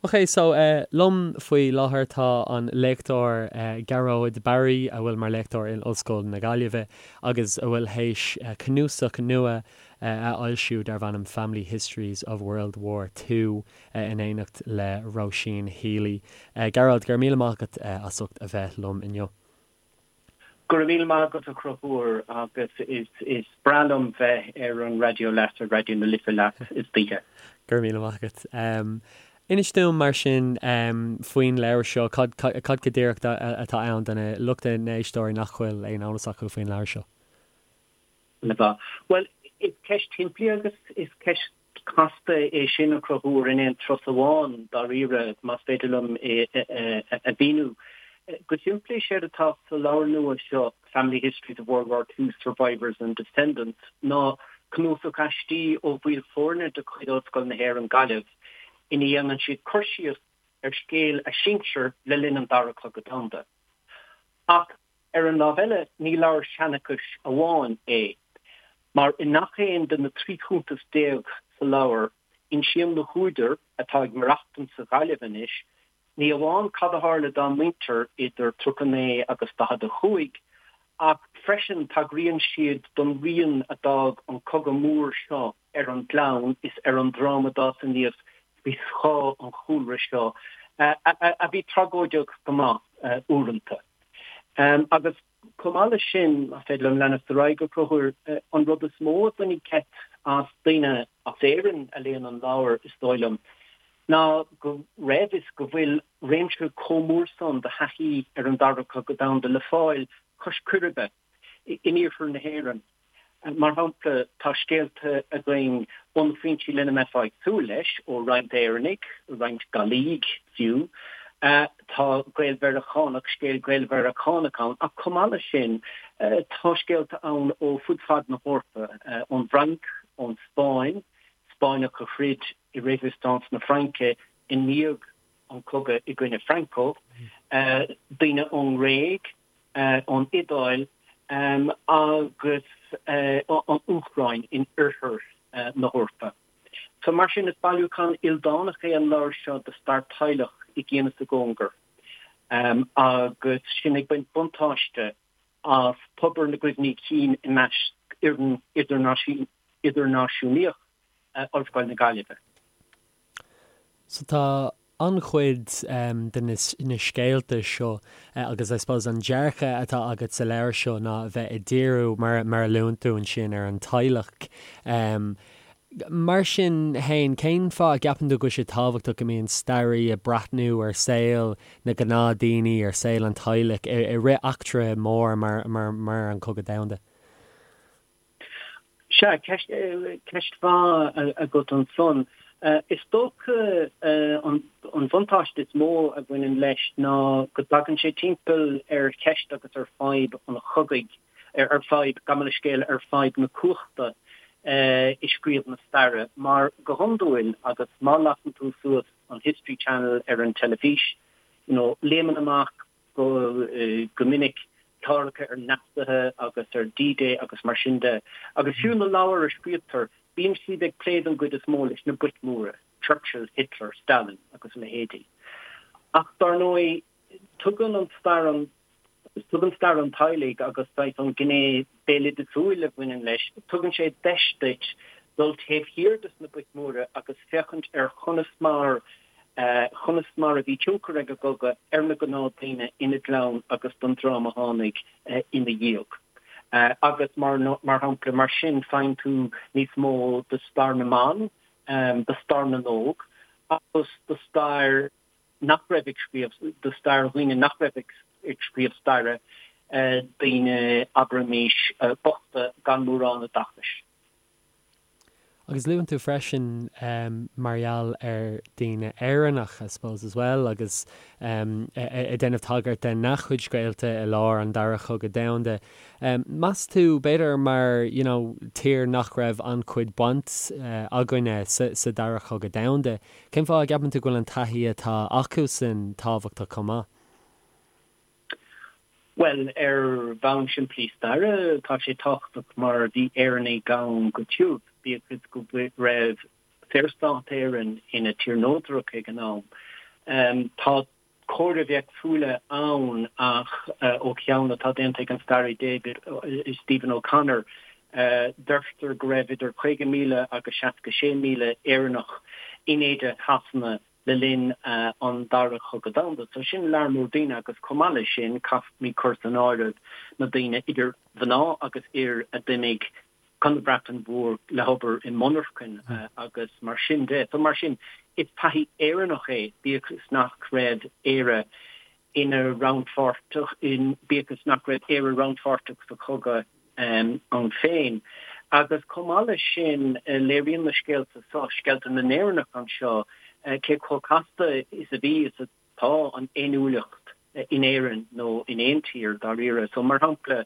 Ok, so liom faoi láthair tá an léachtóir Gearóid Barry, a bhfuil mar léachtóir in Ollscoil na Gaillimhe agus a bhfuil théis cnuasach nua a fhoilsiú darb ainm Family Histories of World War II in éineacht le Róisín Healy. Gearóid, go raibh míle maith agat as ucht a bheith liom inniu. Go raibh míle maith agat a Chonchúir agus is breá liom bheith ar an raidió leat, ar Raidió na Life leat istoíche. Go raibh míle maith agat. Inis dúinn mar sin faoin leabhar seo, cad cad go díreach atá ann do na lucht na n-éisteoirí nach bhfuil aon eolas acu faoin leabhar seo? Bhuel, is ceist shimplí agus is ceist casta é sin a Chonchúir in aon turas amháin, dáiríre, más féidir liom é a mhíniú. Go simplí, is éard atá sa leabhar nua seo, Family Histories of World War II Survivors and Descendants, ná cnuasach aistí ó bhaill foirne de chuid Ollscoil na hÉireann, Gaillimh, ina dhéanann siad cur síos ar scéal a sinsear le linn an Dara Cogadh Domhanda. Ach Ar an lámh eile, ní leabhar seanchais amháin é, mar i ngach aon de na 13 chuntas sa leabhar, insíonn na húdair, atá ag maireachtaint sa Ghaillimh anois, ní amháin cad a tharla dá muintir idir 39 agus 45, ach freisin tagraíonn siad don rian a d'fhág an cogadh mór seo ar an gclann is ar an dream a d'fhás aníos faoi scáth an chúlra seo, a bhí tragóideach go maith uaireanta. Agus chomh maith leis sin, más féidir liom leanacht ar aghaidh, a Chonchúir, an rud is mó a bhainfidh geit as daoine as Éirinn a léann an leabhar, is dóigh liom, ná go raibh is go bhfuil réimse chomh mór san de thaithí ar an Dara Cogadh Domhanda le fáil cois Coiribe in iarthar na hÉireann. Mar shampla, tá scéalta againn ó na foinsí lena mbeifeá ag súil leis, ó roinnt Éireannaigh, roinnt Gallaigh fiú. Tá Gael-Mheiriceánach, scéal Gael-Mheiriceánach ann, ach chomh maith leis sin, tá scéalta ann ó fud fad na hEorpa, ón bhFrainc, ón Spáinn, Spáinneach a throid i Résistance na Fraince i ndiaidh an chogaidh i gcoinne Franco, daoine ón nGréig, ón Iodáil agus an Úcráin in oirthear na hEorpa. So mar sin is bailiúchán ildánach é an leabhar seo de stair teaghlach i gcian is i gcóngar agus sinn ag baint buntáiste as tobar na gcuimhní cinn i measc fhoireann idirnáisiúnaíoch Ollscoil na Gaillimhe. So tá an-chuid de na scéalta seo agus I suppose an dearcadh atá agat sa leabhar seo ná a bheith ag díriú, mar a luann tú ansin, ar an teaghlach. Mar sin fhéin, cén fáth a gceapann tú go bhfuil sé tábhachtach go mbíonn staraí ag breathnú ar saol na gnáthdhaoine, ar saol an teaghlaigh i rith eachtra mór mar an Cogadh Domhanda? Sea, ceist mhaith agat ansan. Is dócha an bhuntáiste is mó a bhaineann leis ná go dtagann sé timpeall ar cheist agus ar fadhb an chogaidh, ar fadhb, gabh mo leithscéal, ar fadhb na cumhachta i scríobh na staire. Mar go hiondúil, agus má lasann tú suas an History Channel ar an teilifís, you know, léimeann amach go minic cláracha ar Naitsithe agus ar D-Day agus mar sin de. Agus fiú na leabhair a scríobhtar, bíonn siad ag plé don gcuid is mó leis na boic mhóra, Churchill, Hitler, Stalin agus a leithéidí. Ach dar ndóigh, tugann an stair an tugann stair an teaghlaigh agus saghas an ghné béaloideasúil a bhaineann leis, tugann sé deis duit dul taobh thiar des na boic mhóra agus féachaint ar chonas mar chonas mar a bhí tionchar ag an gcogadh ar na gnáthdhaoine ina gclann agus don dream a tháinig ina dhiaidh. Agus mar mar shampla, mar sin, faigheann tú níos mó de stair na mban, de stair na n-óg agus de stair nach raibh ag scríobh, de stair dhaoine nach raibh ag scríobh staire, daoine, abraimis, bochta gan mórán oideachais. Agus luann tú freisin mar gheall ar daoine Éireannach, I suppose, as well, agus ag déanamh tagairt de na chuid scéalta i lár an Dara Chogadh Domhanda. Meas tú, b'fhéidir mar, you know, tír nach raibh an-chuid baint againne sa Dara Chogadh Domhanda, cén fáth a gceapann tú go bhfuil an taithí atá acusan tábhachtach chomh maith? Bhuel, ar bhonn simplí staire, tá sé tábhachtach mar bhí Éireannaigh ann go tiubh, bíodh is go raibh Saorstát Éireann ina tír neodrach ag an am. Tá comhairimh éagsúla ann ach ó cheann atá déanta ag an staraí David Stephen O'Connor, deirtear go raibh idir 50,000 agus 66,000 Éireannach in éide Shasana le linn an Dara Chogadh Domhanda. So sin lear mór daoine agus chomh maith leis sin caithfimid cur san áireamh na daoine idir mhná agus fhir a d'imigh chun na Breataine Mhór le hobair i monarchain agus mar sin de. So mar sin, is taithí Éireannach é, bíodh is nach raibh Éire ina rannpháirteach, bíodh is nach raibh Éire rannpháirteach sa chogadh ann féin. Agus chomh maith leis sin, léiríonn na scéalta seo, scéalta na nÉireannach anseo, cé chomh casta is a bhí is atá an fhéiniúlacht in Éirinn nó in aon tír, dáiríre. So mar shampla,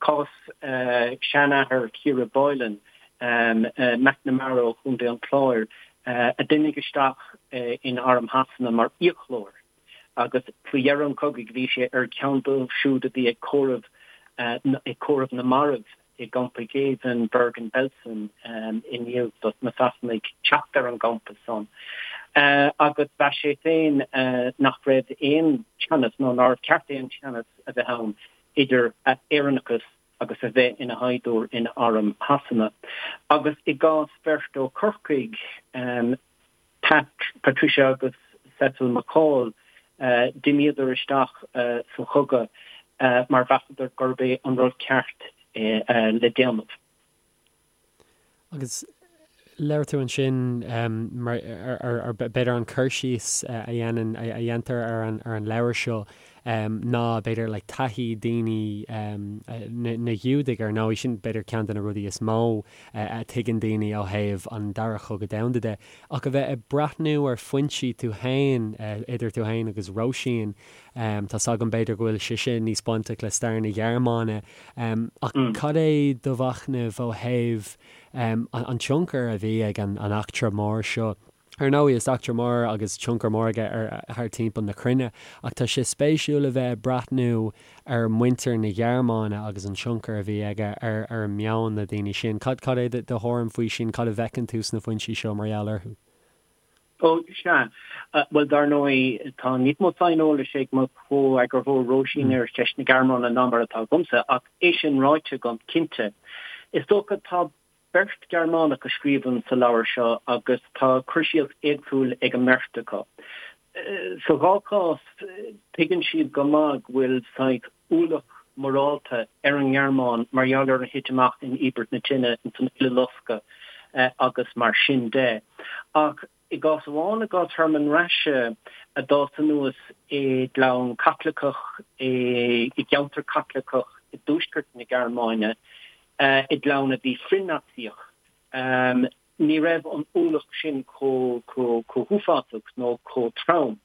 Cás seanathair Chiara Boylan, McNamara ó Chontae an Chláir, a d'imigh isteach in Arm Shasana mar fhiaclóir agus faoi dheireadh an chogaidh bhí sé ar cheann dóibh siúd a bhí ag comhaireamh ag comhaireamh na marbh i gcampa géibhinn Bergen-Belsen i ndiaidh do na Sasanaigh teacht ar an gcampa san. Agus mheas sé féin nach raibh aon teannas nó nár cheart aon teannas a bheith ann idir a Éireannachas agus a bheith ina shaighdiúir in arm Shasana. Agus i gcás bheirt ó Chorcaigh, Pat, Patricia agus Cecil McCall, d'imíodar isteach sa chogadh mar mheasadar gurb é an rud ceart le déanamh. Agus labhair tú ansin mar ar b'fhéidir an cur síos a dhéanann, a dhéantar ar an ar an leabhar seo ná b'fhéidir like taithí daoine na Giúdaigh ar ndóigh, sin b'fhéidir ceann de na rudaí is mó a tuigeann daoine ó thaobh an Dara Chogadh Domhanda de. Ach a bheith ag breathnú ar foinsí tú féin, idir tú féin agus Róisín, Tá's agam b'fhéidir go bhfuil sise níos bainteach le stair na Gearmáine, ach cad é do mhachnamh ó thaobh an tionchar a bhí ag an eachtra mór seo? Ar ndóigh, is eachtra mór agus tionchar mór aige ar thar timpeall na cruinne, ach tá sé spéisiúil a bheith ag breathnú ar mhuintir na Gearmáine agus an tionchar a bhí aige ar ar meon na daoine sin. Cad é do thuairim faoi sin? Cad a bhfeiceann tú sna foinsí seo mar gheall orthu? Ó, sea. Bhuel, dar ndóigh, tá níos mó saineolais ag mo chomheagarthóir Róisín ar cheist na Gearmáine ná mar atá agamsa, ach é sin ráite agam, cinnte, is dócha, tá beirt Ghearmánach a scríobhann sa leabhar seo agus tá cur síos éagsúil ag an mbeirt acu. Sa dhá chás, tuigeann siad go maith go bhfuil saghas ualach morálta ar an nGearmáin mar gheall ar a thit amach in Íobairt na Tine, ins an Uileloscadh agus mar sin de. Ach i gcás amháin, i gcás Hermann Rasche, a d'fhás anuas i gclann Caitliceach i gceantar Caitliceach i dtuaisceart na Gearmáine, i gclann a bhí frith-Naitsíoch, Ní raibh an ualach sin chomh huafásach nó chomh trom.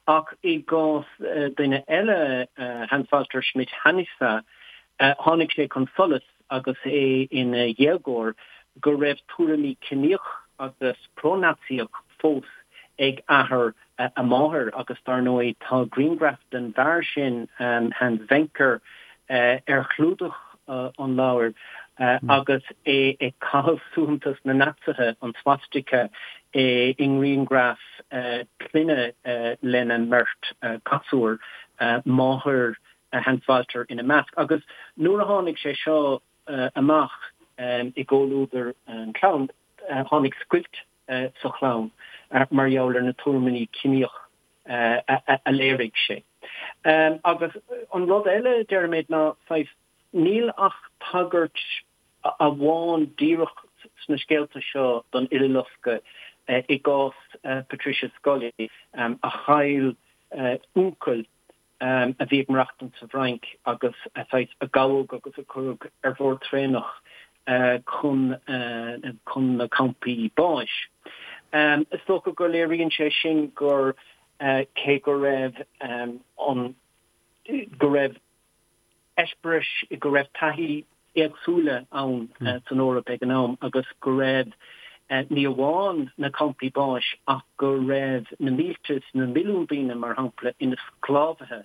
Ach i gcás duine eile, Hans-Walter Schmidt-Hanusse, tháinig sé chun solais agus é ina dhéagóir go raibh tuairimí ciníoch agus pro-Naitsíoch fós ag athair a mháthar agus dar ndóigh tá grianghraf den bhfear sin, Hans Wenker, ar chlúdach an leabhair agus é ag caitheamh suaitheantas na Naitsithe, an swastika, i ngrianghraf clainne lena mbeirt ghasúr, máthair Hans Walter ina measc. Agus nuair a tháinig sé seo amach i gcomhluadar an chlann, tháinig scoilt sa chlann mar gheall ar na tuairimí ciníoch a léirigh sé. Agus an rud eile, deirimid, ná saghas, níl ach tagairt amháin díreach sna scéalta seo don Uileloscadh i gcás Patricia Scully, a chaill uncail a bhí ag maireachtaint sa bhFrainc agus a saghas a gabhadh agus a cuireadh ar bhord traenach chun chun na campaí báis. Is dócha go léiríonn sé sin gur cé go raibh an go raibh eispéiris, go raibh taithí éagsúla ann san Eoraip ag an am agus go raibh ní amháin na campaí báis ach go raibh na mílte is na milliúin daoine, mar shampla, ina sclábhaithe,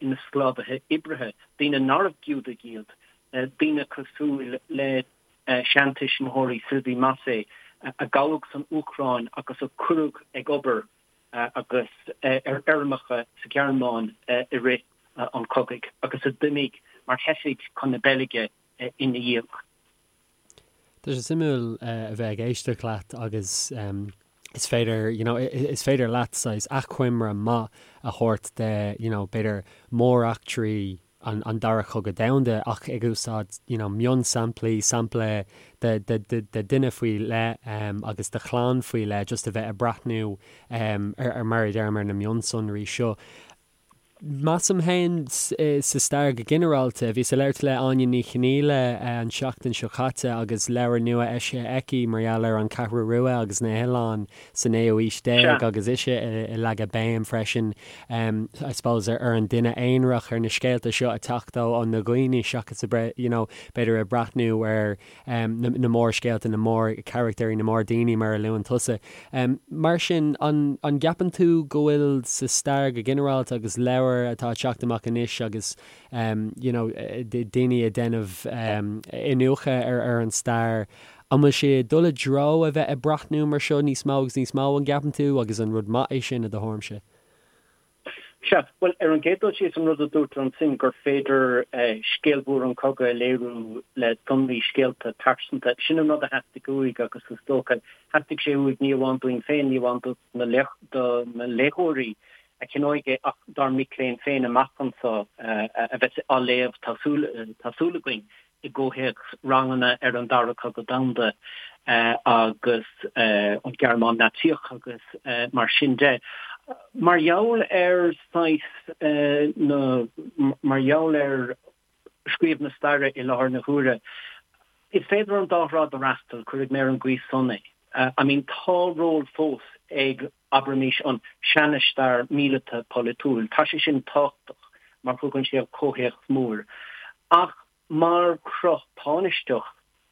ina sclábhaithe oibrithe, daoine nárbh Giúdaigh iad, daoine cosúil le seantuismitheoirí Sylvie Massé. a gabhadh san Úcráin agus a cuireadh ag obair agus ar fheirmeacha sa Ghearmáin i rith an chogaidh agus a d'imigh mar theifigh chun na Beilge ina dhiaidh. Tá sé suimiúil a bheith ag éisteacht leat agus is féidir, you know, is féidir leat saghas achoimre maith a thabhairt de, you know, b'fhéidir móreachtraí an, an Dara Cogadh Domhanda ach ag úsáid, you know, mionsamplaí, sampla de, de, de, de duine faoi leith agus de chlann faoi leith just a bheith ag breathnú ar, ar, mar a deirim, ar na mionsonraí seo. Measaim féin sa stair go ginearálta. Bhíos ag labhairt le Áine Ní Chonghaile an tseachtain seo caite agus leabhar nua eisithe aici mar gheall ar an Cheathrú Rua agus na hoileáin sa naoú haois déag agus ise ag leagadh béim freisin I suppose ar an duine aonarach, ar na scéalta seo ag teacht ó na dhaoine seachas you know b'fhéidir ag breathnú ar na mórscéalta, na mórcharachtair, na mórdhaoine mar a luann tusa. Mar sin, an gceapann tú go bhfuil sa stair go ginearálta agus leabhair atá ag teacht amach anois agus you know daoine ag déanamh iniúchadh ar an stair, an bhfuil sé ag dul i dtreo a bheith ag breathnú mar seo níos mó agus níos mó, an gceapann tú, agus an rud maith é sin i do thuairimse? Sea, bhuel, ar an gcéad dul síos, an rud a dúirt tú ansin, gur féidir scéal mhór an chogaidh a léiriú le sonraí, scéalta pearsanta, sin an rud a theastaigh uaidh agus is dócha, theastaigh sé uaidh ní amháin dúinn féin, ní amháin do na léitheoirí a cheannóidh é ach dár mic léinn féin amach anseo a bheas á léamh, tá súil againn. i gcomhthéacs ranganna ar an Dara Cogadh Domhanda agus an Ghearmáin Naitsíoch agus mar sin de. Mar gheall ar saghas na, mar gheall ar scríobh na staire i láthair na huaire, is féidir an dá thrá a fhreastal, cuirfidh mé ar an gcaoi san é. I mean tá ról fós ag, abraimis, an seana-stair míleata polaitiúil. Tá sé sin tábhachtach mar thugann sé an comhthéacs mór. Ach mar chruth tánaisteach,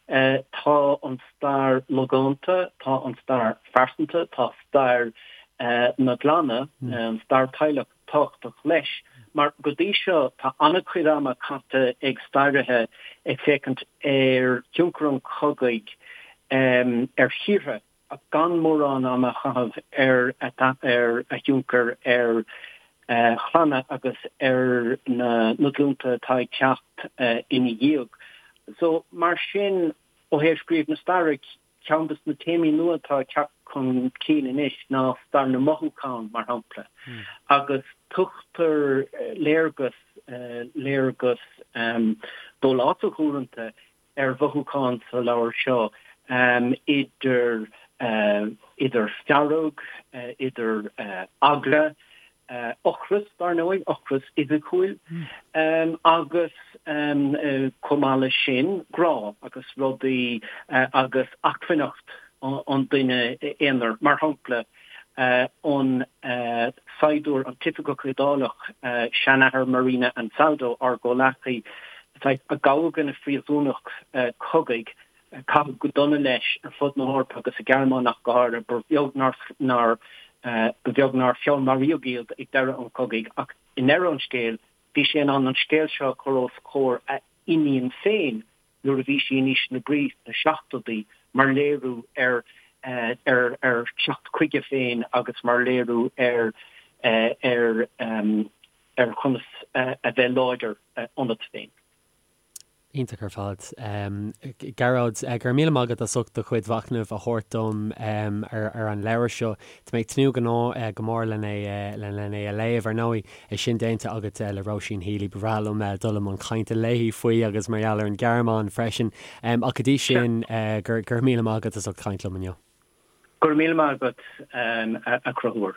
tá an stair logánta, tá an stair phearsanta, tá stair na gclanna, an stair teaghlach tábhachtach leis. Mar go dtí seo tá an-chuid ama caite ag stairithe ag féachaint ar thionchar an chogaidh ar thíortha ach gan mórán ama a chaitheamh ar a thionchar ar chlanna agus ar na glúnta atá ag teacht ina dhiaidh. So, mar sin, ó thaobh scríobh na staire, ceann de na téamaí nua atá ag teacht chun cinn anois ná stair na mothúchán, mar shampla, agus tugtar léargas, léargas dólásach uaireanta, ar mhothúcháin sa leabhar seo, idir idir fearg, idir eagla, ocras, dar ndóigh, ocras fhisiciúil, agus chomh maith leis sin, grá agus rudaí agus acmhainneacht an duine aonair. Mar shampla, an saighdiúir, an t-oifigeach Iodálach, seanathair Marina Ansaldo, ár gcomhleacaí, a gabhadh ina phríosúnach cogaidh, caitheadh go dona leis ar fud na hEorpa agus sa Ghearmáin ach go háirithe, ba bheag nár ba bheag nár feallmaraíodh iad ag deireadh an chogaidh ach i ndeireadh an scéil bhí sé in ann an scéal seo a chur os comhair a iníon féin nuair a bhí sí in aois na brí sna seachtóidí mar léiriú ar ar ar theacht chuige féin agus mar léiriú ar ar ar chonas a bheith láidir ionat féin. Iontach ar fad. Gearóid, go raibh míle maith agat as ucht do chuid mhachnaimh a thabhairt dom ar an leabhar seo. Tá mé ag tnúth go mór len é len é a léamh. Ar ndóigh, é sin déanta agat le Róisín Healy, ba bhreá liom dul i mbun cainte léi faoi agus mar gheall ar an Ghearmáin freisin. Ach go dtí sin, go raibh míle maith agat as ucht caint liom inniu. Go raibh míle maith agat, a Chonchúir.